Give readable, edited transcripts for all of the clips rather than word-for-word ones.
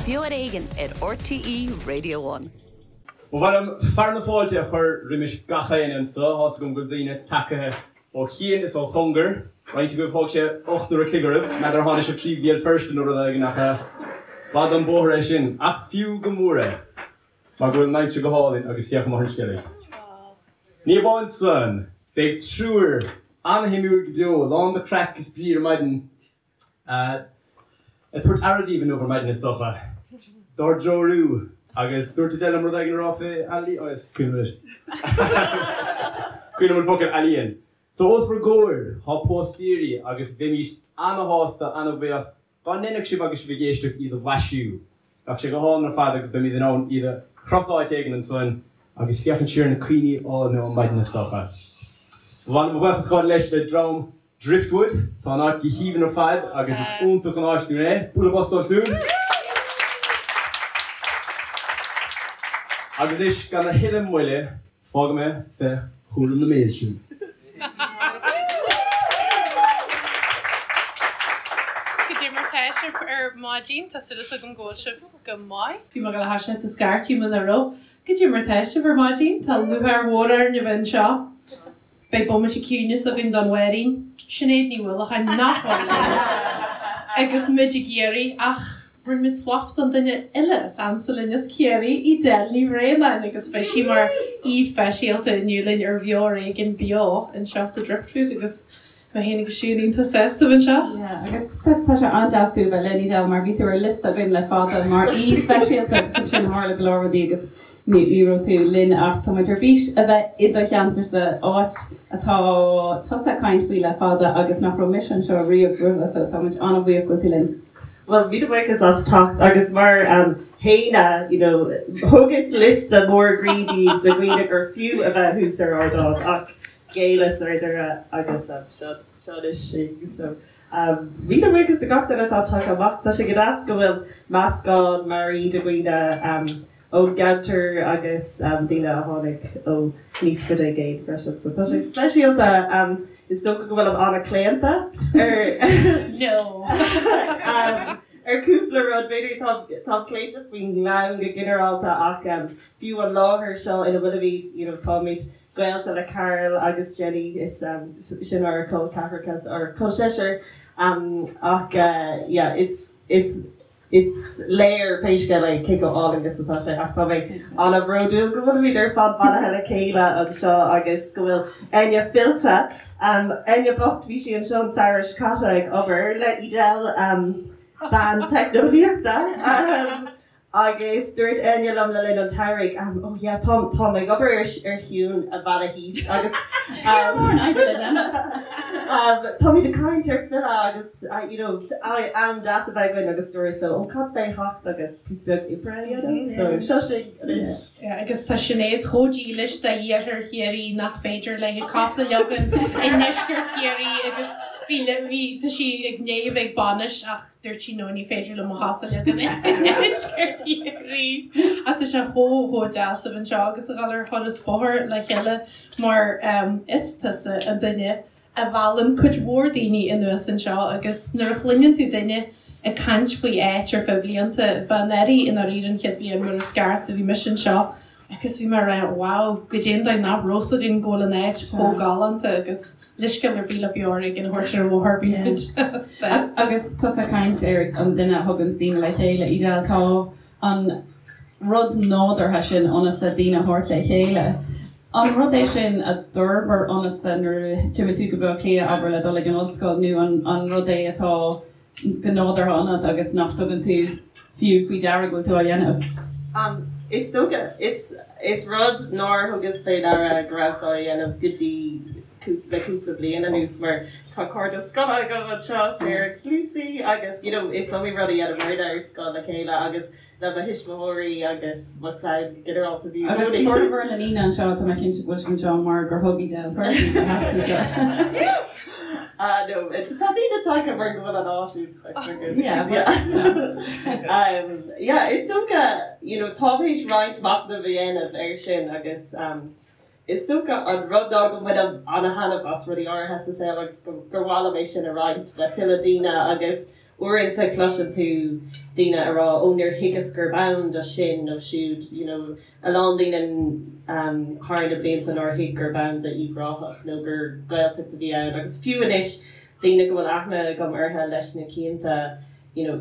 Beo ar Éigean ar RTÉ Radio One. Ba mhaith liom fearadh na fáilte a chur roimis gach éinne anso. Tá's agam go bhfuil daoine tagtha ó chian is ó chóngar. Roinnt agaibh thóg sé 8 n-uair a chloig oraibh. N'fheadar ar tháinig sibh trí Bhéal Feirste nó rud éigin ach b'fhada an bóthar é sin. Ach fiú go mór é mar go bhfuil an aimsir go hálainn agus féach amuigh ar an Sceilg. Ní amháin san, beidh triúr an-shuimiúil go deo, lán de chraic is brí ar maidin. Ag tabhairt aire daoibh inniu ar maidin is dócha. Dár dtreorú. Agus dúirt Edel liom rud éigin a rá fé ealaíon, oh is cuimhin liom anois. Cuimhin liom an focal ealaíon. So os bhur gcomhair tá póstaeirí agus bheimíst ana-shásta, ana-bhuíoch dá ndéanfadh sibh agus sibh ag éisteacht iad a mhaisiú. Bheadh sé go hálainn ar fad agus beimid in ann iad a chrochadh áit éigin ansan agus féachaint siar ar na cuimhní álainne ó maidin is dócha. Ba mhaith liom mo bhuíochas a ghabháil leis le dream Driftwood. Tá an áit go haoibhinn ar fad agus is iontach an áis dúinn é. Bualadh bos dóibh siúd! Agus anois gan a thuilleadh moille, fágfaidh mé fé chúram na mBays sibh. Goidé mar tá sibh ar maidin, tá súil agam go bhfuil sibh go maith. Bhí mé ag gabháil a thoiseacht ag scairtigh muna raibh. Goidé mar tá sibh ar maidin, tá lúcháir mhór orainn a bheith anseo. Beidh bomaite ciúinis againn don Mháirín, Sinéad Ní Uallacháin nach bhfuil linn agus muid ag iarraidh ach rinne muid swap don duine eile is ansa linn as Ciarraí, Edel Ní Bhraonáin agus beidh sí mar aoi speisialta inniu linn ar Bheo ar Éigean beo anseo sa Driftwood agus mé féin agus Siún iontach sásta a bheith anseo. Yeah, agus tá sé an-deas tú a bheith linn Edel mar bhí tú ar liosta againn le fada mar aoi speisialta agus ansin tharla go leor rudaí agus Ní raibh tú linn ach tá muid ar bís a bheith i do cheantarsa, áit atá tusa ag caint faoi le fada agus nach raibh mise anseo riamh roimhe so tá muid an-bhuíoch go bhfuil tú linn. Bhuel, míle buíochas as teacht agus mar Shéanna, you know, thugas liosta mór groí daoibh de dhaoine gur fiú a bheith thuas ar ardán ach ghéilleas ar deireadh agus seo seo anois sinn. So míle buíochas do gach duine atá tagtha amach. Tá sé go deas go bhfuil meascán mearaí de dhaoine ón gceantar agus daoine a tháinig ó níos faide i gcéin freisin. So tá sé speisialta. Is dócha go bhfuilim an-chlaonta ar No. ar cúpla rud. B'fhéidir tá táim claonta faoin nGleann go ginearálta ach fiú an láthair seo ina bhfuilimid, you know, táimid gaolta le Carl agus Jenny, is sin ár col ceathracha, ár col seisear ach yeah, is is Is léir pé scéal é cé chomh álainn is atá sé ach tá mé an-bhródúil go bhfuilimid ar fad bailithe le chéile anseo agus go bhfuil Enya fillte. Enya bocht, bhí sí anseo an samhradh seo caite ag obair le Edel, bean teicneolaíochta, agus dúirt Enya liom le linn an tsamhraidh, oh yeah, tá tá mé ag obair ar ar thiúin a mhealladh thíos agus táimid ag caint ar filleadh agus you know, am deas a bheith againn agus dúras leo, oh cad fé theacht agus píosa beag oibre a dhéanamh, so seo sinn anois. Yeah, agus tá Sinéad chomh dílis d'iarthar Chiarraí nach féidir léi cos a leagan i ndeisceart Chiarraí agus bhí, bhí, tá sí ag ndiaidh a bheith ag bainis ach dúirt sí no ní féidir liom mo chos a leagan i ndeisceart Chiarraí. Ach tá sé chomh, chomh deas a bheith anseo agus a dhul ar thuras bóthair le chéile mar is tusa an duine a mheallann cuid mhór daoine anuas anseo agus nuair a chluineann tú duine ag caint faoi áit ar feadh blianta, ba anuraidh i ndáiríre an chéad bhliain mar is ceart a bhí mise anseo agus bhí mé ag rá wow, goidé an dóigh nach raibh 's againn go bhfuil an áit chomh galánta agus leithscéal ar bith le Beo Ar Éigean a thabhairt ar an bhóthar bíonn muid sásta. Agus tusa ag caint ar an duine a thuganns daoine le chéile, Edel, tá an rud nádúrtha sin ionatsa daoine a thabhairt le chéile. An rud é sin a d'fhorbair ionatsa nuair a d'imigh tú go Baile Átha Cliath, abair, le dul ag an ollscoil nó an rud é atá go nádúrtha ionat agus nach dtugann tú fiú faoi deara go bhfuil tú á dhéanamh? Is dócha, is rud nár thugas fé deara go rabhas á dhéanamh go dtí le cúpla bliain anuas mar tá cairde scoile agam anseo, Sarah agus Lucy agus you know is iomaí rud a dheineamar ar scoil le chéile agus le mo thuismitheoirí agus mo chlann go ginearálta bhí i Agus gcónaí. formhór na ndaoine anseo tá mé cinnte go bhfuil sibh anseo mar gur thug Edel cuireadh daoibh a theacht anseo. Ah no, tá daoine tagtha mar go bhfuil an áit iontach agus Yeah, but, you know. Um, yeah, is dócha, you know, táim théis roinnt machnaimh a dhéanamh air sin agus um, Is dócha an rud ná go mbainim ana-thaitneamh as rudaí áirithe sa saol agus gur mhaith liom é sin a roinnt le tuilleadh daoine agus. Uaireanta cloiseann tú daoine a rá 'ó níor thuigeas gurb ann do sin nó siúd', you know, a lán daoine thar na blianta nár thuig gurb ann do Uíbh Ráthach nó gur Gaeltacht a bhí ann agus fiú anois daoine go bhfuil aithne agam orthu leis na cianta, you know,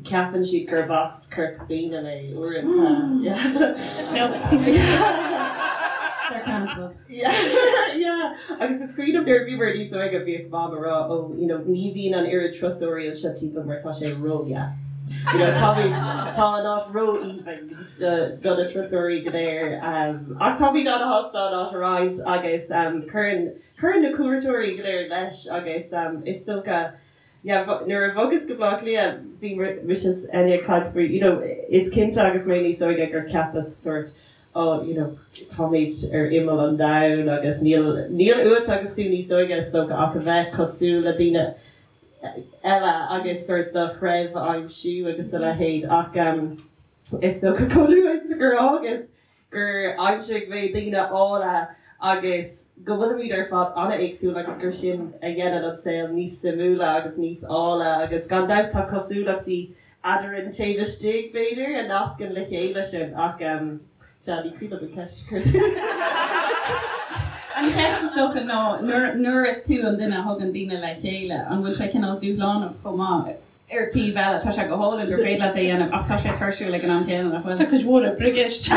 ceapann siad gurb as Corca Dhuibhne mé uaireanta. They're cancelled. Yeah, yeah. Agus is cuimhin liom nuair a bhíomar níos óige bhíodh Mam a rá oh, you know, ní bhíonn an oiread turasóirí anseo timpeall mar tá sé ró-dheas. You know, táimid, tá an áit ró-aoibhinn do, do na turasóirí go léir. Um, ach táimid ana-shásta an áit a roinnt agus um, cuireann, cuireann na cuairteoirí go léir leis agus um, is dócha Yeah, nuair a bhogas go Baile Átha Cliath, bhí mise is Enya ag caint faoi, you know, is cinnte agus mé níos óige gur cheapas sort, oh, you know, táimid ar imeall an domhain agus níl, níl uait agus tú níos óige is dócha ach a bheith cosúil le daoine eile agus sort do threibh a aimsiú agus a leithéid ach um, Is dócha chomh luath is gur fhágas gur aimsigh mé daoine áille agus go bhfuilimid ar fad an-éagsúil agus gur sin a dhéanann an saol níos suimiúla agus níos áille agus gan dabht tá cosúlachtaí eadrainn taobh istigh, b'fhéidir, a nascann le chéile sinn ach sea, ní cuimhin liom an cheist a chuir tú. An cheist is dócha ná nuair is tú an duine a thugann daoine le chéile, an bhfuil sé cineál dúshlánach chomh maith? Ar taobh eile, tá sé go hálainn gur féidir leat é a dhéanamh ach tá sé tuirsiúil ag an am céanna, nach bhfuil? Tá cuid mhór oibre i gceist.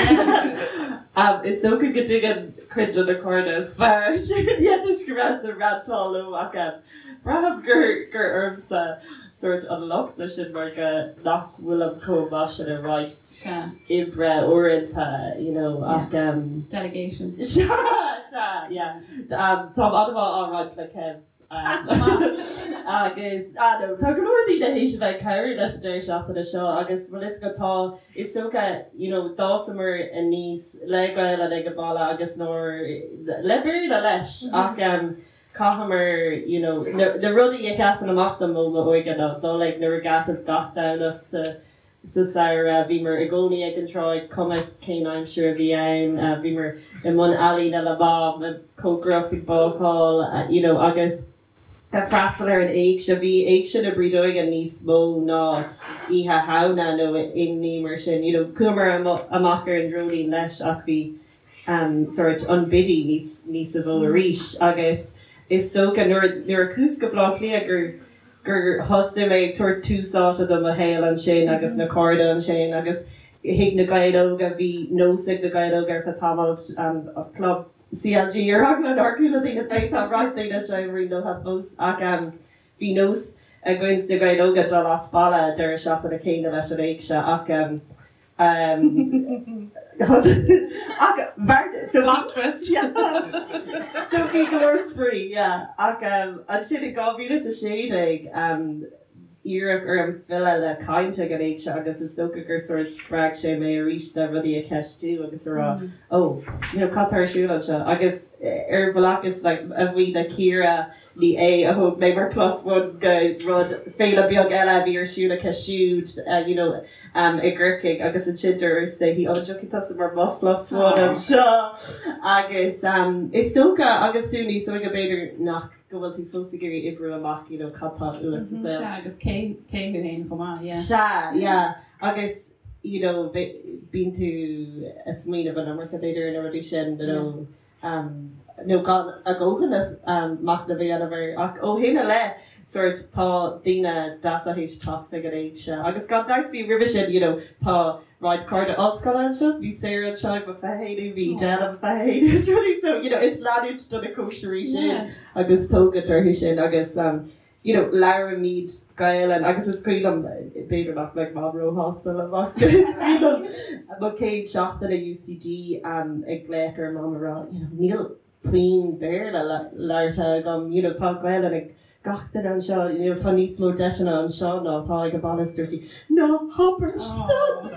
Is dócha go dtuigeann cuid de na cairde is fearr sin yeah toisc go rabhas ag rantáil leo ach braithim gur gur ormsa sórt an locht leis sin mar go nach bhfuilim chomh maith sin ag roinnt oibre uaireanta you know ach Delegation. Sea, sea, yeah. Táim an-mhaith á roinnt le Kev. Agus, ah no, tá go leor daoine théis a bheith ag cabhrú leis an deireadh seachtaine seo agus bhfuil fhios agat tá, is dócha, you know, d'fhásamar aníos le Gaelainn ag an baile agus nár, le Béarla leis ach em chaitheamar, you know, na, na rudaí a sheasann amach dom ó m'óige ná dul ag na regattas gach Domhnach sa Sa samhradh, bhíomar i gcónaí ag an tráigh, cuma cén aimsir a bhí ann. Bhíomar i mbun ealaíne le Mam, ag cócaireacht, ag bácáil, you know, agus ag freastal ar an éigse. Bhí éigse na Brídeoige níos mó ná Oíche Shamhna nó aon ní mar sin. You know, chuamar amach ar an dreoilín leis ach bhí sórt an Biddy níos níosa mhó arís agus is dócha nuair nuair a chuas go Baile Átha Cliath gur gur thosnaigh mé ag tabhairt tús áite do mo shaol ansin agus na cairde ansin agus thig na Gaeil Óga bhí nós ag na Gaeil Óga ar feadh tamaill an club CLG ar eagla nár chuala daoine fé tá roinnt daoine anseo i Marine Lótha fós ach bhí nós againn sna Gaeil Óga dul as baile deireadh seachtaine céanna leis an éigse ach Ach so Plot twist. So bhí go leor spraoi, yeah. Ach ansin in 2016 iarradh orm filleadh le caint ag an éigse agus is dócha gur sórt spreag sé mé arís le rudaí a cheistiú agus a rá oh, you know, cad tá ar siúl anseo? Agus ar bhealach is like a bhuí le Ciara Ní Aodha a thóg mé mar plus one go rud féile beag eile a bhí ar siúl aici siúd you know i gCorcaigh agus ansin dúirt léi an dtiocfaidh tusa mar mo plus one anseo agus is dócha agus tú níos óige b'fhéidir nach go bhfuil tú fós ag iarraidh oibriú amach you know cad tá uait sa saol. Sea agus cé cé thú féin chomh maith yeah. Sea yeah agus you know bíonn tú ag smaoineamh an iomarca b'fhéidir ar na rudaí sin you know nó gan a dhóthain machnaimh a dhéanamh air. Ach ó shin i leith, sórt, tá daoine deasa théis teacht ag an éigse. Agus gan dabht fiú roimhe sin, you know, tá roinnt cairde ollscoile anseo, bhí Sarah anseo ag mo 21ú, bhí Edel ag mo 21ú is rudaí, so, you know, is leanúint do na cóisirí sin agus tógaint orthu sin agus, you know, labhraímid Gaelainn agus is cuimhin liom, b'fhéidir nach mbeidh Mam róshásta liom ach is cuimhin liom mo chéad seachtain i UCD ag glaoch ar Mam a rá, you know, níl puinn Béarla labhartha agam, you know, tá Gaelainn ag gach duine anseo, you know, tá níos mó deiseanna anseo ná atá ag an baile is dúirt sí, ná habair san!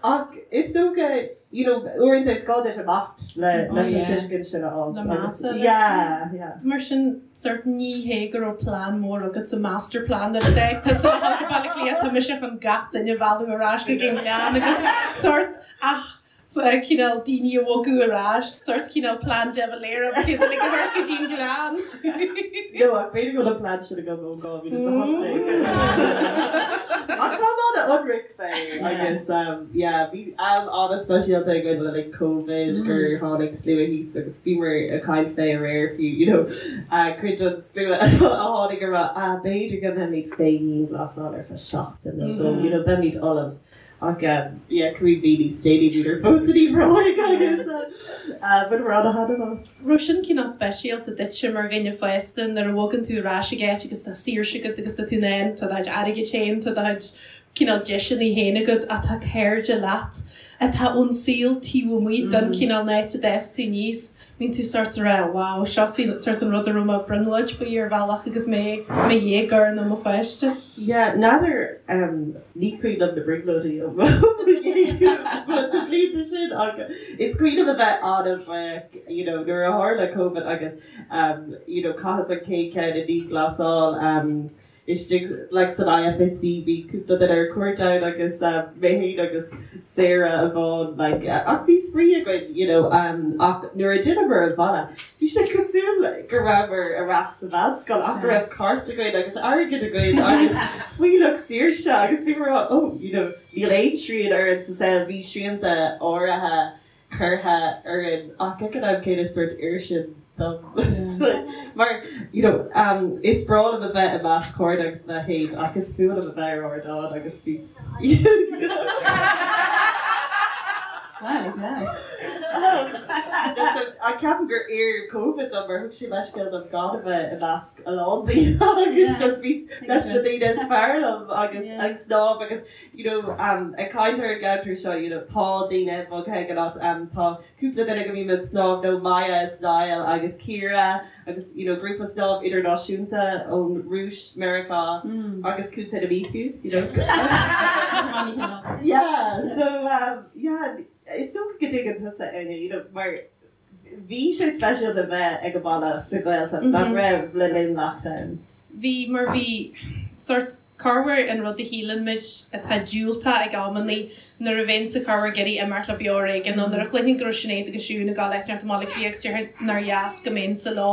Ach is dócha, you know, uaireanta is gá duit imeacht le leis an tuiscint sin a fháil. Le measa leis. Yeah, yeah. Mar sin, sort ní hé go raibh plean mór agat sa master plan nuair a d'fhág tusa le dhul go Baile Átha Cliath, tá mise chun gach duine a mhealladh ar ais go dtí an Gleann agus sort ach. Cineál daoine a bhogadh ar ais, sórt cineál plean De Valera, but iad uilig a thabhairt go dtí an gleann. No, ach b'fhéidir go bhfuil an plean sin agam ó 2018. Ach táim an-ionraic fé agus yeah, bhí am an-speisialta againn le linn Covid gur tháinig slua thíos agus bhíomar ag caint fé aréir fiú, you know, cuid den slua a tháinig ag rá, ah, b'fhéidir go mbeimid fé dhianghlasáil ar feadh seachtain nó dhó, you know, beimid ullamh. Ach yeah, cúig mhí níos déanaí bhíodar fós in Uíbh Ráthaigh agus bhaineamar ana-thaitneamh as. Raibh sin cineál speisialta duitse mar dhuine fásta nuair a bhogann tú ar ais ag áit agus tá saoirse agat agus tá tú in ann, tá do chuid airgid féin, tá do chuid cineál deiseanna féin agat ach tá cairde leat atá ón saol taobh amuigh den cineál áit a d'fhás tú aníos. Bíonn tú sórt ag rá wow, seo sórt an rud a raibh mé ag brionglóid faoi ar bhealach agus mé i mo dhéagóir nó mo pháiste. Yeah, n'fheadar, ní cuimhin liom na brionglóidí ó mo na blianta sin ach is cuimhin liom a bheith an-bhuíoch, you know, nuair a tharla Covid agus, you know, chaitheas an chéad cheann i ndianghlasáil, istigh like san IFSC bhí cúpla duine ar cuairt ann agus mé féin agus Sarah amháin like ach bhí spraoi againn you know ach nuair a d'fhilleamar abhaile bhí sé cosúil go rabhamar ar ais sa mheánscoil ach go raibh cairt againn agus airgead againn agus fuílleach saoirse agus bhíomar oh you know níl aon srian orainn sa saol bhí srianta áirithe curtha orainn ach ag an am céanna sórt oir sin dom mar you know is breá liom a bheith i measc cairde agus a leithéid ach is fuath liom a bheith ar ardán agus bhí Ach ceapaim gur oir Covid dom mar thug sé leithscéal dom gan a bheith i measc a lán daoine agus just bhí leis na daoine is fearr liom agus ag snámh agus you know, ag caint ar an gceantar seo, you know, tá daoine bogtha ag an áit, tá cúpla duine go mbím ag snámh leo, Maya is Niall agus Ciara agus, you know, grúpa snámh idirnáisiúnta ón Rúis, Meiriceá agus Contae na Mí fiú, you know. Yeah, so, yeah, is dócha go dtuigeann tusa, Áine, you know, mar bhí sé speisialta bheith ag an baile sa Ghaeltacht, nach raibh, le linn lockdown? Bhí, mar bhí sórt corruair an rud a shíleann muid atá diúltach ag amannaí nuair a bheinnse corruair ag iarraidh imeacht le beo ar éigean nó nuair a chluinfinn go raibh Sinéad agus Siún ag dul áit inteacht i mBaile Átha Cliath agus déarfainn nár dheas go mbeinnse leo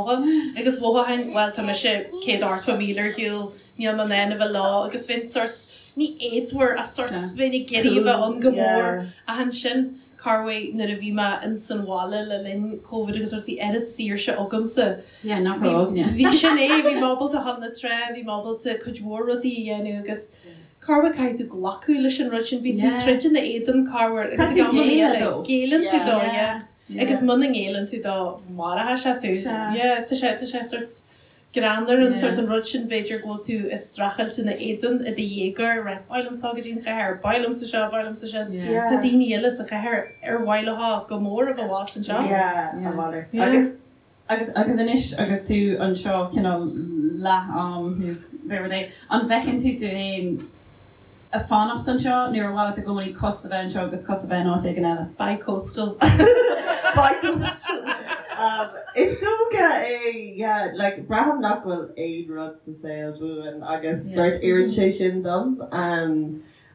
agus mhothóchainn bhuel tá mise 180 míle ar shiúl níl mé in ann a bheith leo agus bheinn sórt ní éadmhar ach sórt bheinn ag iarraidh a bheith ann go mór ach ansin corruair nuair a bhí mé ins an bhaile le linn Covid agus rud bhí oiread saoirse agamsa. Yeah, nach raibh againne. Bhí sin é, bhí mé ábalta a dhul na trá, bhí mé ábalta cuid mhór rudaí a dhéanamh agus corruair caithfidh tú glacadh leis an rud sin, bíonn tú troid ina éadan corruair agus ag amanna eile géilleann tú dó, yeah. Agus muna ngéilleann tú dó, maróidh sé tú. Yeah, tá sé, tá sé sort greannmhar an sort an rud sin b'fhéidir go bhfuil tú ag streachailt ina éadan i do dhéagóir, right, ba mhaith liomsa dul go dtí an chathair, ba mhaith liomsa seo, ba mhaith liomsa sin. Tá daoine eile sa chathair ar mhaith leo go mór a bheith abhus anseo. Yeah, a mhalairt. Agus Agus agus anois agus tú anseo cineál leath am nó pé rud é, an bhfeiceann tú tú féin ag fanacht anseo nó ar mhaith leat i gcónaí cos a bheith anseo agus cos a bheith in áit éigin eile? Bi-coastal. Bi-coastal. Is dócha é, yeah, like braithim nach bhfuil aon rud sa saol buan agus sort oireann sé sin dom.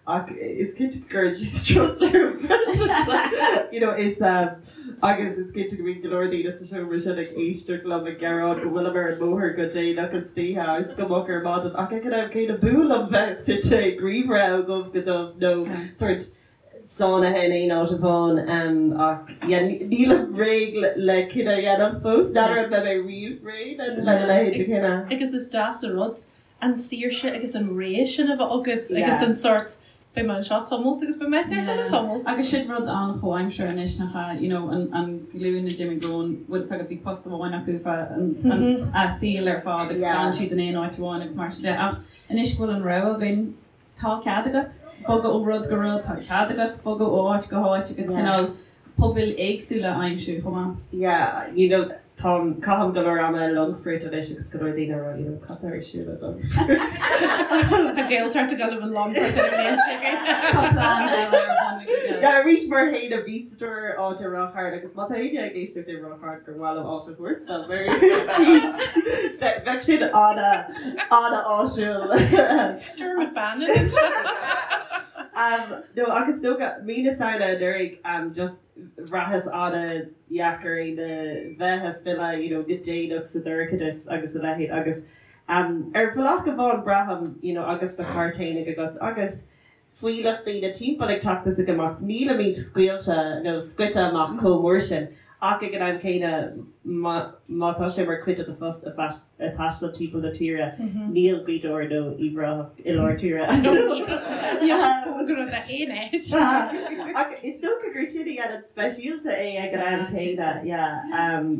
Ach is cinnte go gcuireann sé strus orm freisin. You know, is agus is cinnte go mbíonn go leor daoine sa seomra sin ag éisteacht liom ag gearán go bhfuilim ar an mbóthar go déanach istoíche agus go moch ar maidin ach ag an am céanna b'fhuath liom bheith suite ag ríomhaire ó dhubh go dubh nó sort sáinnithe in aon áit amháin ach yeah nílim réidh le cinneadh a dhéanamh fós. N'fheadar an mbeidh mé riamh réidh lena leithéid de chinneadh. Agus is deas an rud an saoirse agus an rogha sin a bheith agat agus an sórt beidh mé anseo tamalt agus beidh mé ar eile tamalt. Agus sin rud an-chomhaimseartha anois nach ea, you know, an an ghlúin a d'imigh romhainn, bhfuil fhios agat, bhí post amháin acu feadh an a saoil ar fad agus d'fhan siad in aon áit amháin agus mar sin de. Ach anois go bhfuil an rogha againn, tá cead agat bogadh ó rud go rud, tá cead agat bogadh ó áit go háit agus cineál pobail éagsúla a aimsiú chomh maith. Yeah, you know, táim, caithim go leor ama i Longfort anois agus go leor daoine ag rá, you know, cad tá ar siúl i Longfort? Tá Gaeltacht ag dul i Longfort ar an mbliain seo againn. Tá plean eile ar bun ag Yeah, arís mar fhéin bhí sa dúr áit i Ráth Chairn agus má tá éinne ag éisteacht i Ráth Chairn gur mhaith liom áit a thabhairt dom ar cíos, bheadh sin ana, ana áisiúil. Dermot Bannon anseo. No ach is dócha, mí na Samhna anuraidh, just bhraitheas an-dheacair é na bheith ag filleadh, you know, go déanach sa dorchadas agus a leithéid agus ar bhealach amháin braithim, you know, agus do charr fhéinig agat agus fuílleach daoine timpeall ag teacht is ag imeacht, nílimid scaoilte nó scoite amach chomh mór sin ach ag an am céanna má tá sé mar chuid de do phost a taisteal timpeall na tíre, níl Gaoth Dobhair nó Uíbh Ráthach i lár tíre. Níl sé cóngarach d'aon áit. Ach is dócha gur sin a dhéanann speisialta é ag an am céanna, yeah.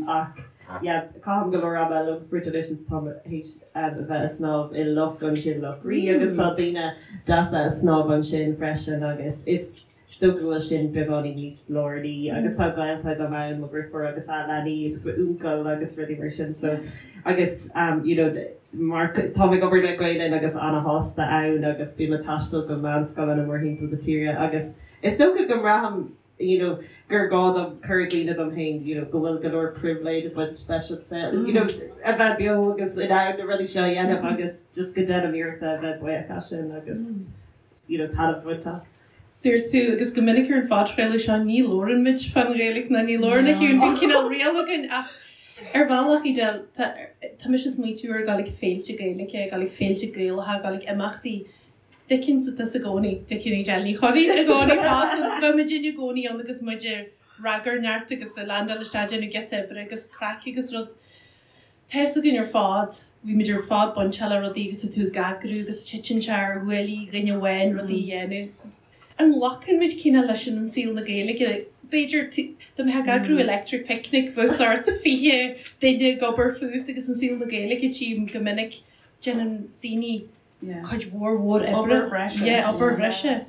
Ach yeah, caithim go leor ama i Longfort anois is táim théis a bheith ag snámh i loch ansin, Loch Rí, agus tá daoine deasa ag snámh ansin freisin agus is dócha go bhfuil sin beagáinín níos lárnaí agus tá gaolta agam ann, mo dheirfiúr agus a leanaí agus m'uncail agus rudaí mar sin so agus you know mar táim ag obair le Gael Linn agus ana-shásta ann agus bím ag taisteal go meánscoileanna mórthimpeall na tíre agus is dócha go mbraithim you know, gur gá dom cur i gcuimhne dom féin, you know, go bhfuil go leor pribhléid ag baint leis an saol, you know, a bheith beo agus in ann na rudaí seo a dhéanamh agus just go ndéanaim iarracht a bheith buíoch as sin agus, you know, taitneamh a bhaint as. Dúirt tú, agus go minic ar an phodchraoladh seo, ní labhrann muid fán Ghaeilge ná ní labhrann a Shiún, bíonn cineál riail againn ach ar bhealach, Edel, tá, tá mise ag smaoitiú ar dhul ag féilte Gaeilge, ag dul ag féilte Gaelacha, ag dul ag imeachtaí, dtuigeann tusa i gcónaí, tuigeann Edel Ní Churraoin i gcónaí fosta. Bheadh muidinne i gcónaí ann agus muid ag ragairneacht agus ag landáil isteach déanamh giota oibre agus craic agus rud. Tá fhios againn ar fad, bhí muid ar fad bainteach le rudaí agus tá tú ag eagrú agus titeann sé ar ghuaillí dhuine amháin rudaí a dhéanamh. An nglacann muid cineál leis sin in saol na Gaeilge? B'fhéidir, dá mbeifeá ag eagrú Electric Picnic bheadh sórt 20 duine ag obair fút agus in saol na Gaeilge tchím go minic déanann daoine cuid mhór mhór oibre. Obair bhreise. Yeah, obair bhreise.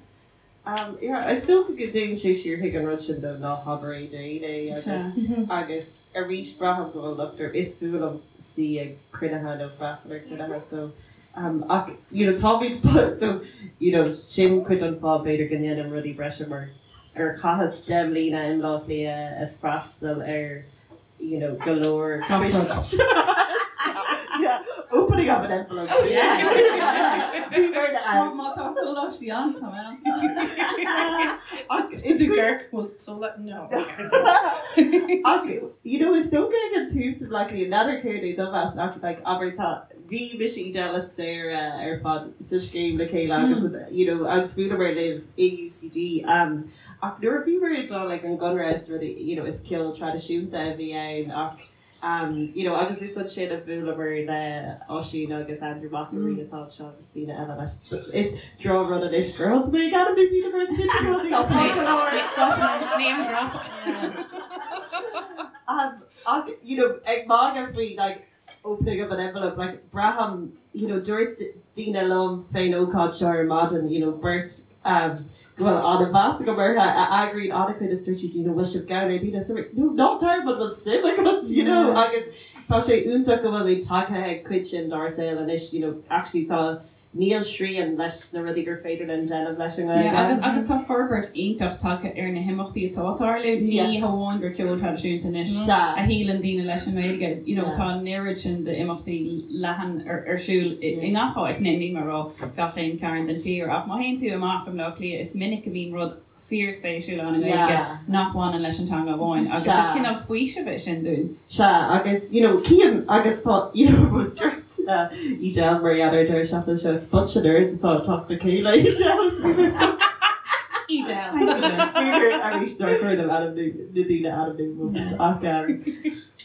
Yeah, is dócha go dtéann sé siar chuig an rud sin de ná habair é d'aon é agus agus arís braithim go bhfuil locht orm, is fuath liom suí ag cruinnithe nó freastal ar chruinnithe so ach you know táimid so you know sin cuid den fáth b'fhéidir go ndéanaim rudaí breise mar gur chaitheas 10 mbliana i mBleá Cliath ag freastal ar you know, go leor yeah, opening of an envelope. Oh yeah. Bhí mé ann. Má tá sóláistí ann, tá mé ann. Ach is Is gur bhfuil sóla no. Ach you know, is dócha ag an tús i Bleá Cliath, n'fheadar céard é do mheas ach like, abair tá bhí mise Edel is Sarah ar fad sa scéim le chéile agus you know, agus bhuaileamar libh i UCD um, Ach nuair a bhíomar ag dul ag an gConradh is rudaí, you know, is ceol traidisiúnta a bhí ann ach um, you know, agus is ansin a bhuaileamar le Oisín agus Andrew McElree atá anseo agus daoine eile leis. Is drochrud anois gur thosaigh mé ag ainmniú daoine mar is cinnte go bhfuil Stop it. Name drop. Um, ach, you know, ag magadh faoi, like, opening of an envelope, like, braithim, you know, dúirt daoine liom fén ócáid seo ar maidin, you know, beirt um, go bhfuil an-mheas agam orthu a eagraíonn an-chuid is dúirt siad, you know, bhfuil sibh gann ar dhaoine? So, no, ná tar, but bhfuil suim agat, you know, agus tá sé iontach go bhfuil muid tagtha ag cuid sin dár saol anois, you know, actually tá Níl srian leis na rudaí gur féidir linn déanamh leis an nGaeilge. Agus agus tá forbairt iontach tagtha ar na himeachtaí atá ag tarlú. Ní hamháin gur ceol traidisiúnta anois a shíleann daoine leis an nGaeilge, you know tá an oiread sin d'imeachtaí leathan ar ar siúl i ngach áit, níl mé ag rá gach aon cearn den tír ach má théann tú amach i mBleá Cliath is minic a bhíonn rud fíorspéisiúil ann i nGaeilge nach bhaineann leis an teanga amháin agus is cineál faoisimh é sin dúinn. Sea, agus you know cím agus tá you know dúirt Edel mar gheall ar an deireadh seachtaine seo, it's bunch of nerds atá ag teacht le chéile Edel is Edel. B'fhéidir arís nár chóir dom ainmniú na daoine a ainmniú whoops ach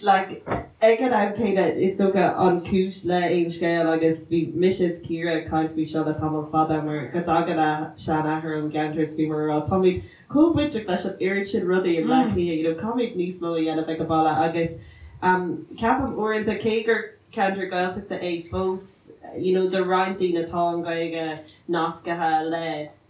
like ag an am céanna is dócha an chúis le Aon Scéal agus bhí mise is Ciara ag caint faoi seo le tamall fada mar go dtagann a seanathair ón gceantar is bhíomar ag rá táimid chomh bainteach leis an oiread sin rudaí i mBleá Cliath you know caithfimid níos mó a dhéanamh ag an baile agus um ceapaim uaireanta cé gur ceantar Gaeltachta é fós you know do roinnt daoine tá an Ghaeilge nascaithe le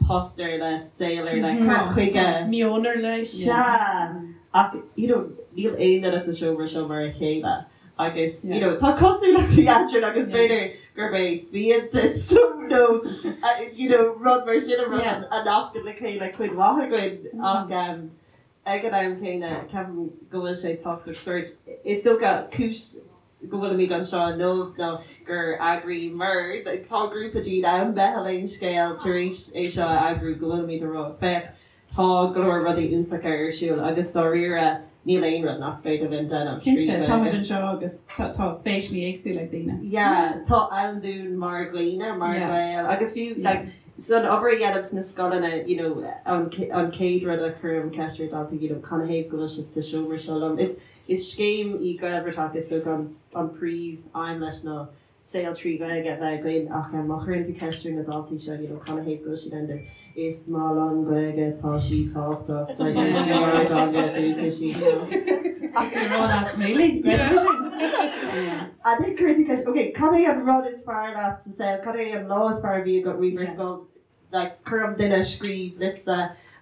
post ar leith, saol ar leith, cur chuige. Meon ar leith. Sea. Ach, you know, níl aon duine sa seomra seo mar a chéile agus, you know, tá cosúlachtaí eadrainn agus b'fhéidir gurb é fiántas nó, you know, rud mar sin an rud a nascann le chéile cuid mhaith againn ach ag an am céanna ceapaim go bhfuil sé tábhachtach sórt, is dócha, cúis. go bhfuilimid anseo inniu nó gur eagraíomar, tá grúpa daoine ann, Meitheal Aon Scéal, tar éis é seo a eagrú, go bhfuilimid ag rá, féach, tá go leor rudaí iontacha ar siúl agus dáiríre níl aon rud nach féidir linn déanamh trí Cinnte, tá muid anseo agus tá spéiseanna éagsúla ag daoine. Yeah, tá ann dúinn mar dhaoine, mar Ghaeil agus fiú like san obair a dhéanaim sna scoileanna, you know, an an chéad rud a chuirim ceist ar daltaí, you know, canathaobh go bhfuil sibh sa seomra seo liom? Is Is scéim í Gaelbhratach, is dócha an príomh aidhm leis ná saol trí Ghaeilge a bheith againn ach má chuireann tú ceist ar na daltaí seo you know canathaobh go bhfuil siad ann is maith liom Gaeilge tá sí tábhachtach is í ár dteanga dúchais í you know. Ach tá rá leat really? Gaeilge sin? And then cuireann tú ceist ok cad é an rud is fearr leat sa saol cad é an lá is fearr a bhí agat riamh ar scoil like cuirim duine scríobh liosta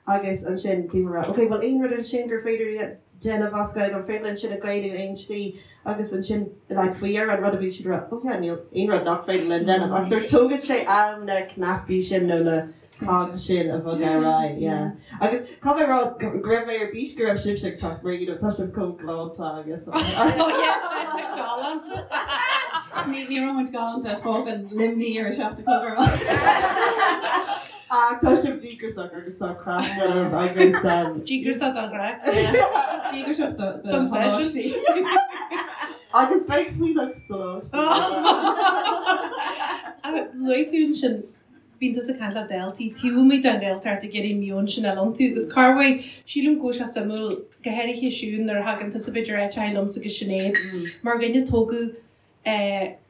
agus ansin bím ag rá ok bhfuil aon rud ansin gur féidir déanamh as Gaeilge an féidir linn sin a Ghaelú aon tslí agus ansin like faoi dheireadh an rud a bhí siad ag rá oh yeah níl aon rud nach féidir linn déanamh ach sort tógann sé am na cnaipí sin nó na cogs sin a bhogadh ar aghaidh yeah agus caithfidh mé a rá go raibh mé ar bís go raibh sibhse ag teacht mar you know tá sibh chomh galánta agus oh yeah tá galánta. Ní ní raibh muid galánta fágann Luimní ar a 7 a chlog ar maidin. Ach tá sibh díograiseach agus tá craic agaibh agus Díograiseach don chraic. Díograiseach do Don session. Agus beidh fuílleach sa lóistín. Luaigh tú ansin Bíonn tusa ag caint le daltaí taobh amuigh den Ghaeltacht ag iarraidh meon sin a fháil iontu agus corruair, sílim go bhfuil sé suimiúil, go háirithe Siún nuair a thagann tusa b'fhéidir áit a liomsa agus Sinéad, mar dhuine a tógadh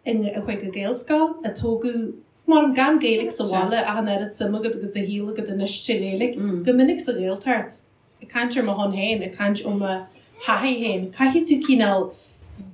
in chuig an Ghaelscoil, a tógadh mar gan Gaeilge sa bhaile ach an oiread suim agat agus a shaol agat anois sa Ghaeilge, go minic sa Ghaeltacht. Ag caint ar mo shon féin, ag caint ó mo thaithí féin, caithfidh tú cineál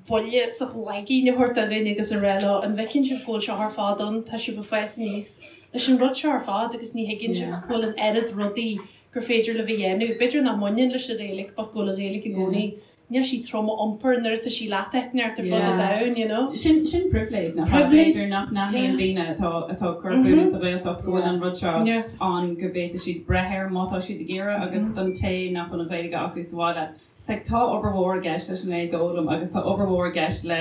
buille sa chloigeann a thabhairt do dhuine agus a rá leo, an bhfeiceann sibh go bhfuil seo ar fad ann, tá sibh ag fás aníos leis an rud seo ar fad agus ní thuigeann sibh go bhfuil an oiread rudaí gur féidir libh a dhéanamh. B'fhéidir nach mbaineann leis an Ghaeilge but go bhfuil an Ghaeilge i gcónaí Níl sí trom a iompar nuair atá sí leat eitneart ar fud an domhain, you know. Sin sin pribhléid nach ea? B'fhéidir nach n-aithníonn daoine atá atá ag cur fúthu sa Ghaeltacht go bhfuil an rud seo ann go bhféadfaidh siad breith air má tá siad ag iarraidh agus don té nach bhfuil an Ghaeilge acu sa bhaile like tá obair mhór i gceist leis an nGaeilge a fhoghlaim agus tá obair mhór i gceist le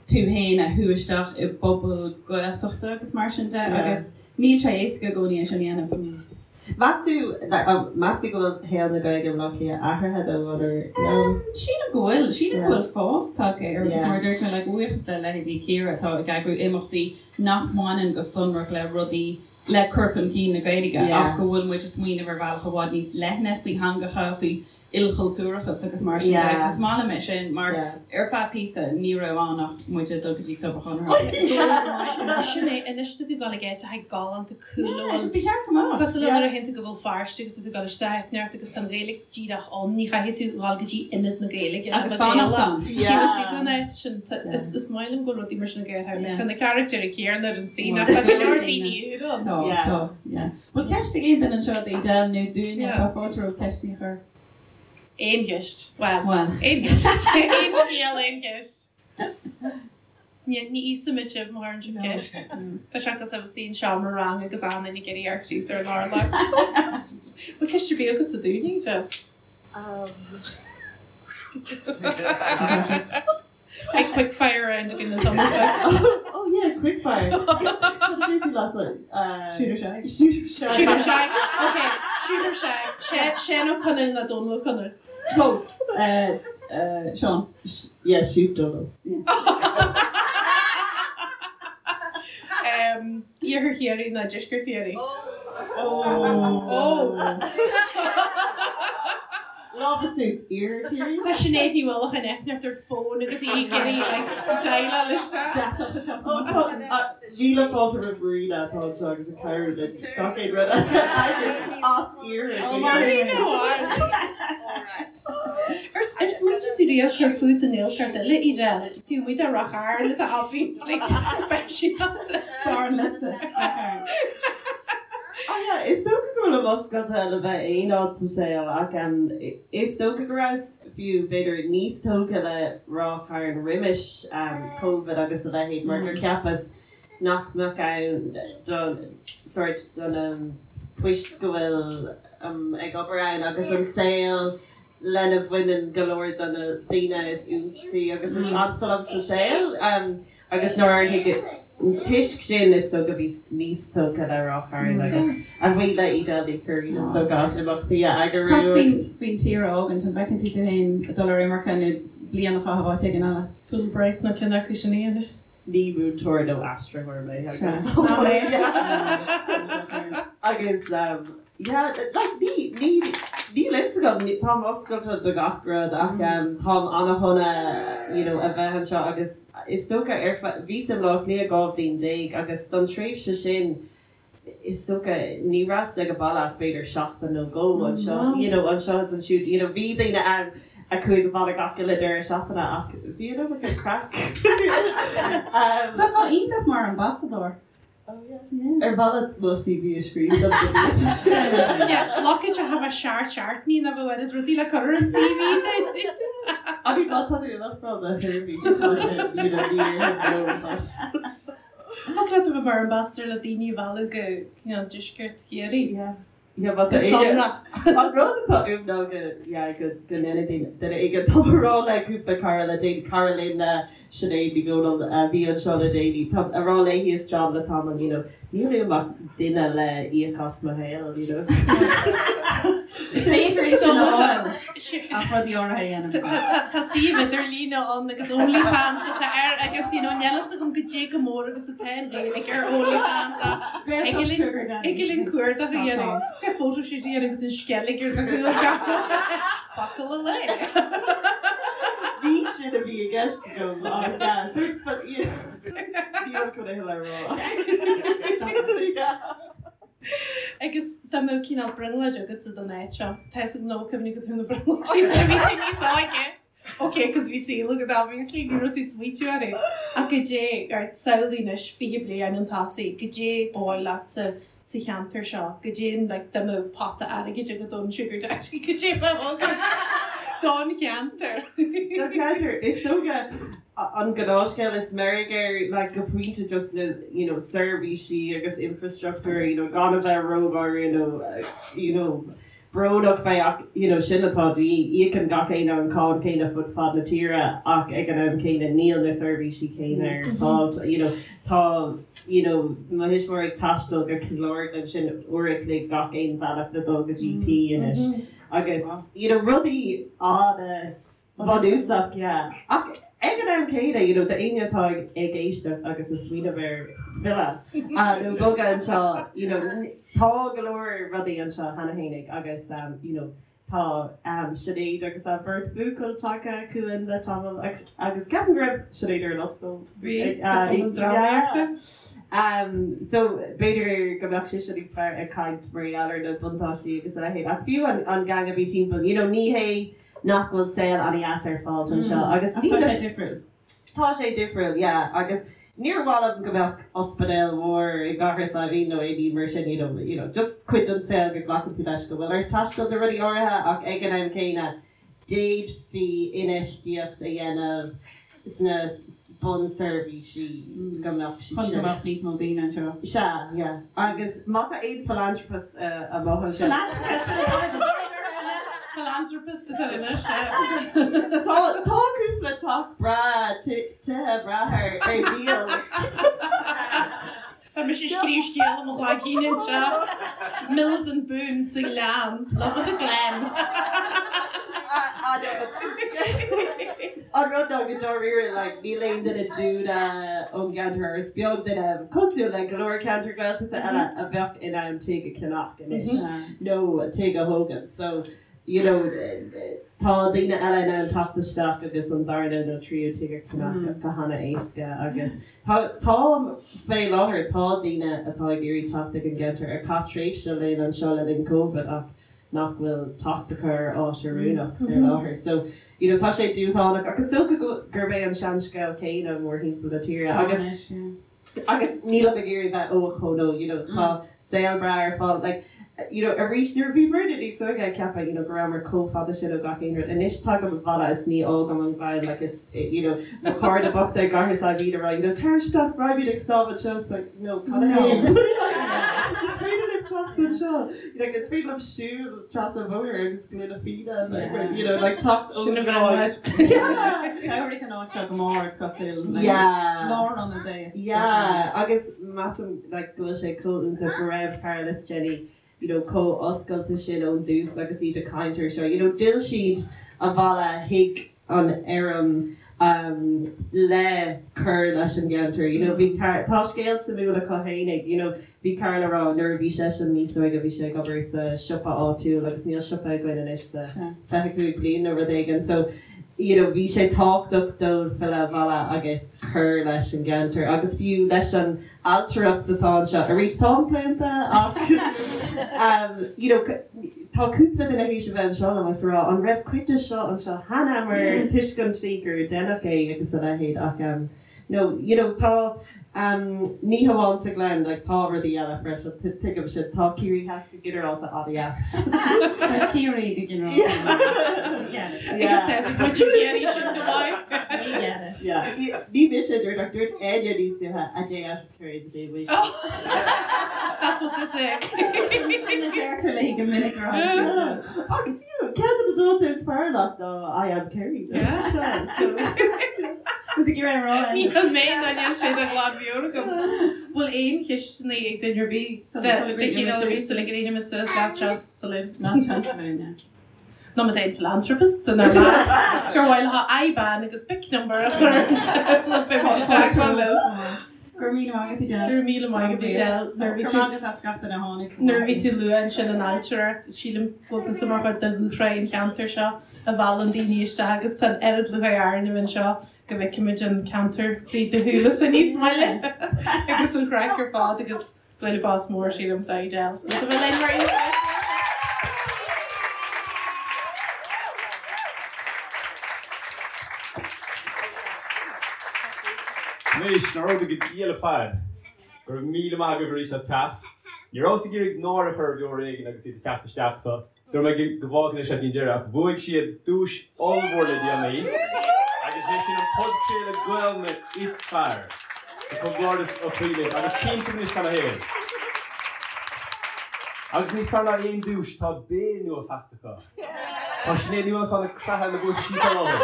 tú féin a shú isteach i bpobal Gaeltachta agus mar sin de agus níl sé éasca i gcónaí é sin a dhéanamh. Meas tú, meas tú go bhfuil shaol na Gaeilge i mBleá Cliath athraithe dó or no? Sílim go bhfuil. Sílim go bhfuil fás tagtha air agus mar a dúirt mé, like, buíochas le leithéidí Ciara atá ag eagrú imeachtaí nach mbaineann go sonrach le rudaí le cur chun cinn na Gaeilge ach go bhfuil muid ag smaoineamh ar bhealach i bhfad níos leithne faoi theangacha, faoi ilchultúrachas agus mar sin de agus is maith liom é sin mar ar feadh píosa ní raibh ann ach muid ag dul go dtí Club an Chonartha. Sin é, anois tá tú ag dul ag áit atá galánta cool a bhfuil Ba cheart go mbeadh. Cosúil le nuair a théann tú go Béal Feirste agus tá tú ag dul isteach áit inteacht agus tá an Ghaeilge díreach ann, ní chaithfidh tú dhul go dtí ionad na Gaeilge Agus fanacht ann. Taobh istigh den áit sin, is maith liom go bhfuil rudaí mar sin ag éirí. Tá na carachtair céanna ar an scene ach tá go leor daoine úr ann. Tá, tá, yeah. Bhfuil ceist ag aon duine anseo d'Edel nó dúinne? Tá fáilte romhaibh ceisteanna a chur. Aon cheist. Bhuel, aon cheist. Aon scéal, aon cheist. Ní íosfaimid sibh má chuireann sibh ceist. Tá sé cosúil le bheith i seomra ranga agus achan duine ag iarraidh amharc síos ar an urlár. Bhfuil ceist ar bith agatsa dúinne, Edel? Beidh quick fire round againn an tamall seo. Oh yeah, quick fire. Cad a dúirt tú last one? Shoot or shag? Shoot or shag. Shoot or shag. Ok, shoot or shag. Seán Ó Conaill nó Dónal Ó Conaill? Both. Seán. Yeah, shoot Dónal. Iarthar Chiarraí nó Deisceart Chiarraí? Oh. Lámha suas, Iarthar Chiarraí. Tá Sinéad Ní Uallacháin eitneacht ar fón agus í ag iarraidh like déileáil isteach. Deatach a teacht amach. Míle fáilte roimh Marina atá anseo agus ag cabhrú linn gach aon rud a eagrú as Iarthar Chiarraí. Ar smaointigh tú riamh cur fút i nGaeltacht eile, Edel? Taobh amuigh de Ráth Chairn atá obviously speisialta. Barr an liosta, Ráth Chairn. Ah yeah, is dócha go bhfuilim oscailte le bheith aon áit sa saol ach is dócha go rabhas fiú b'fhéidir níos tógtha le Ráth Chairn roimis Covid agus a leithéid mar gur cheapas nach mbeadh ann don sort do na poist go bhfuil ag obair ann agus an saol. lena bhaineann go leor de na daoine is iontaí agus is ansa liom sa saol agus nár thuig toisc sin is dócha bhíos níos tógtha le Ráth Chairn agus a bhuí le Edel Ní Churraoin is dócha as imeachtaí a eagrú Cad faoin faoin tír a fhágaint, an bhfeiceann tú tú féin ag dul ar imirce nó bliain a chaitheamh áit éigin eile? Fulbright nó ceann acu sin a dhéanamh. Ní múinteoir nó aistritheoir mé agus agus yeah like ní ní níl fhios agam táim oscailte do gach rud ach táim ana-shona you know a bheith anseo agus is dócha ar feadh bhíos i mBleá Cliath 12 bhliain agus don tréimhse sin is dócha ní rabhas ag an baile ach b'fhéidir seachtain nó dhó anseo you know anseo is ansiúd you know bhí daoine ann a chuaigh abhaile gach uile deireadh seachtaine ach bhí an iomarca craic. Bheifeá iontach mar ambasadóir. Oh yeah. Ar mhaith leat mo CV a scríobh dom go bhféadfaidh sé? Yeah, look at you have a seart seart ní na bhfuil oiread rudaí le cur ar an CV duit. I mean má tá tú in iontráil do sheirbhís tá sé you know ní fhéadfainn no but. Thig leat a bheith mar ambassador le daoine a mhealladh go cineál deisceart Chiarraí. Yeah. Yeah, but Go sonrach. An rud atá uaim ná go, yeah, go go ndéanfaidh duine éigin tá mé ag rá le cúpla cara le déanaí, cara linn Sinéad Ní Dhomhnaill a bhí anseo le déanaí, tá ag rá léi is John le tamall, you know, níl uaim ach duine le íoc as mo shaol, you know. Is féidir é sin a fháil ach rudaí áirithe a dhéanamh. Tá suíomh idirlíne ann agus OnlyFans atá air agus you know níl fhios agam goidé chomh mór agus atá an Ghaeilge ar OnlyFans ach thig linn cuardach a dhéanamh. Go photoshoot a dhéanamh agus an sceilg ar do chúl focal a lae. Ní sin a bhí i gceist agam ach yeah, sort but yeah, níl chun é le rá. Yeah. Agus dá mbeadh cineál brionglóid agatsa don áit seo, tá fhios agam nach bhfuil cuimhne agat ar na brionglóidí nuair a bhí tú níos óige. Ok, cos bhí saol agat obviously, ní raibh tú ag smaoitiú orthu. Ach goidé, right, samhlaigh anois 20 bliain chun tosaigh, goidé ba mhaith leatsa sa cheantar seo, goidé an, like, dá mbeadh pota airgid agat ón sugar daddy, goidé a bheadh agat don cheantar. Don cheantar, is dócha. An gnáthscéal is meirg air like go pointe just na you know seirbhísí agus infrastruchtúr you know gan a bheith rógháirí nó you know brónach fé ach you know sin atá de dhíth. Íocann gach éinne an cáin céanna fud fad na tíre ach ag an am céanna níl na seirbhísí céanna ar fáil you know tá you know mo thuismitheoirí ag taisteal go Cill Orglan sin uair a chloig gach aon bhealach le dul go GP anois agus you know rudaí ana Bhunúsach, yeah. Ach ag an am céanna, you know, d'éinne atá ag éisteacht agus ag smaoineamh ar filleadh nó bogadh anseo, you know, tá go leor rudaí anseo cheana fhéinig agus, you know, tá Sinéad agus a beirt buachaill tagtha chugainn le tamall agus ceapaim go raibh Sinéad ar an ollscoil. Bhí, sa Chumann Drámaíochta. So, b'fhéidir go mbeadh sise níos fearr ag caint mar gheall ar na buntáistí agus a leithéid ach fiú an gang a bhí timpeall, you know, ní hé nach bhfuil saol an-dheas ar fáil anseo agus Ach tá sé difriúil. Tá sé difriúil, yeah, agus níor mhaith liom go mbeadh ospidéal mhór i gCathair Saidhbhín nó aon ní mar sin, you know, you know, just cuid den saol go nglacann tú leis go bhfuil ort taisteal do rudaí áirithe ach ag an am céanna d'fhéadfaí infheistíocht a dhéanamh sna bunseirbhísí go mbeadh siad sin. Chun go mbeadh níos mó daoine anseo. Sea, yeah. Agus má tá aon philanthropist amuigh ansin. Philanthropist! Sin an áit a Philanthropist atá anois, yeah. Tá, tá cúpla teach breá, tithe breá ar díol. Tá mise ag scríobh scéal i mo ghlaigín anseo. Mills and Boon sa Ghleann. Love of the Glen. An rud ná go dáiríre like níl aon duine dúinne ón gceantar is beag duine cosúil le go leor ceantar Gaeltachta eile a bheadh in ann tigh a cheannach anois nó tigh a thógaint. So you know tá daoine eile in ann teacht isteach agus an darna nó tríú tigh a cheannach go hana-éasca agus Tá, tá, fé láthair, tá daoine atá ag iarraidh teacht ag an gceantar a chaith tréimhse linn anseo le linn Covid ach nach bhfuil teacht acu ar áit oiriúnach fé láthair. So, you know, tá sé dúshlánach ach is dócha go, gurb é an seanscéal céanna mórthimpeall na tíre agus, agus nílim ag iarraidh bheith ó chomh nó, you know, tá saol breá ar fáil. Like, you know, arís, nuair a bhí muidne níos óige ag ceapadh, you know, go rabhamar chomh fada sin ó gach aon rud. Anois tagaim abhaile is ní fhágaim an Gleann, like, is, you know, mo chairde bochta i gCathair Saidhbhín ag rá, you know, tar isteach, raghaimid ag snámh anseo, it's like, no, cad é? Like, is féidir libh. teacht anseo. You know, is féidir liom siúl trasna an bhóthair agus gloine fíona like, you know, like teacht ón Sin a dtráigh. bhreith. Yeah. Chabhraigh an áit seo go mór is cosúil. Like, Yeah. Lárionad é. Yeah, agus measaim like go bhfuil sé chomh iontach go raibh Carol is Jenny you know chomh oscailte sin ón dtús agus iad ag caint air seo. You know, d'fhill siad abhaile chuig an fheirm um le cur leis an gceantar. You know, bhí Car- tá scéal suimiúil acu fhéinig, you know, bhí Carol ag rá nuair a bhí seisean níos óige bhí sé ag obair sa siopa áitiúil agus níl siopa againn anois le 25 bliain nó rud éigin so you know bhí sé tábhachtach dóibh filleadh abhaile agus cur leis an gceantar agus fiú leis an ailtireacht atá anseo. Arís táim claonta ach um you know tá cúpla duine théis a bheith anseo liom agus a rá an raibh cuid de seo anseo cheana mar toisc an tslí gur deineadh é agus a leithéid ach um no you know tá um ní hamháin sa Ghleann like tá rudaí eile freisin tuigim sin tá Ciarraí Theas go ginearálta an-deas. Tá Ciarraí go ginearálta. Agus tá muid ag iarraidh sin go maith. We get it. Yeah. Ní mise a dúirt ach dúirt Enya níos luaithe a day out of Kerry is a day wasted. That's what they say. Sin a deirtear léi go minic ar an Ach fiú ceann de na dánta is fearr leat ná I am Kerry. Yeah. So Níl mé ná níl sé de ghlanmheabhair agam. Bhfuil aon cheisteanna ag duine ar bith de chineál ar bith sula gcríochnaímid suas last chance saloon? Last chance saloon, yeah. Nó má tá aon philanthropist inár measc gur mhaith leo IBAN agus BIC number a chur ar an tábla beidh muid i dteagmháil leo. Go raibh míle maith agat Edel. Go raibh míle maith agat Edel. Nuair a bhí tú Go raibh maith agat as gach duine a tháinig. Nuair a bhí tú luath ansin an ailtireacht, sílim go bhfuil tusa mar chuid de dhúshraith an cheantair seo a mheallann daoine isteach agus tá an oiread lúcháir orainn a bheith anseo go bhfeicimid an ceantar trí do shúile-sa níos moille agus an chraic ar fad agus bualadh bos mór sílim do Edel. Is a bheith linn mar aon. Anois, nár fhóda go diail ar fad. Go raibh míle maith agaibh arís as teacht. Ní rabhas ag iarraidh náire a chur ar Bheo Ar Éigean agus iad ag teacht isteach so dúirt mé go bhfágfainn é seo dtí'n deireadh ach bhuaigh siad duais ollmhór le déanaí agus is é sin an podchraoladh Gaelainne is fearr. So comhghairdeas ó chroí libh agus cinnte anois cad ina thaobh. Agus níos fearr ná aon duais tá béal nua faighte acu. Tá Sinéad Ní Uallacháin ag creathadh na buaitaisí faoi láthair.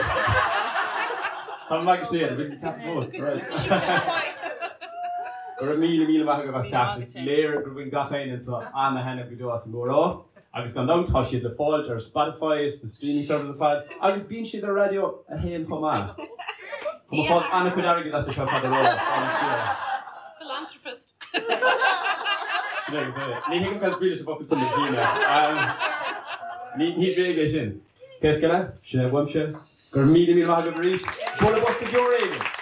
Tá mé ag Sinéad, bhí teacht fós. Go raibh míle míle maith agaibh as teacht. Is léir gur bhain gach éinne anseo ana-thaitneamh go deo as an gcomhrá. Agus gan dabht tá siad le fáilt ar Spotify is na streaming services ar fad agus bíonn siad ar Raidió 1 chomh maith. Tá mé ag fáilt an-chuid airgid as seo fad a rá. Philanthropist. Sin é go é. Ní thuigim cad is brí leis an bhfocal san le Gina. Ní ní bréag é sin. Pé scéal é, sin é uaimse. Go raibh míle míle maith agaibh arís. Bualadh bos do Bheo Ar Éigean!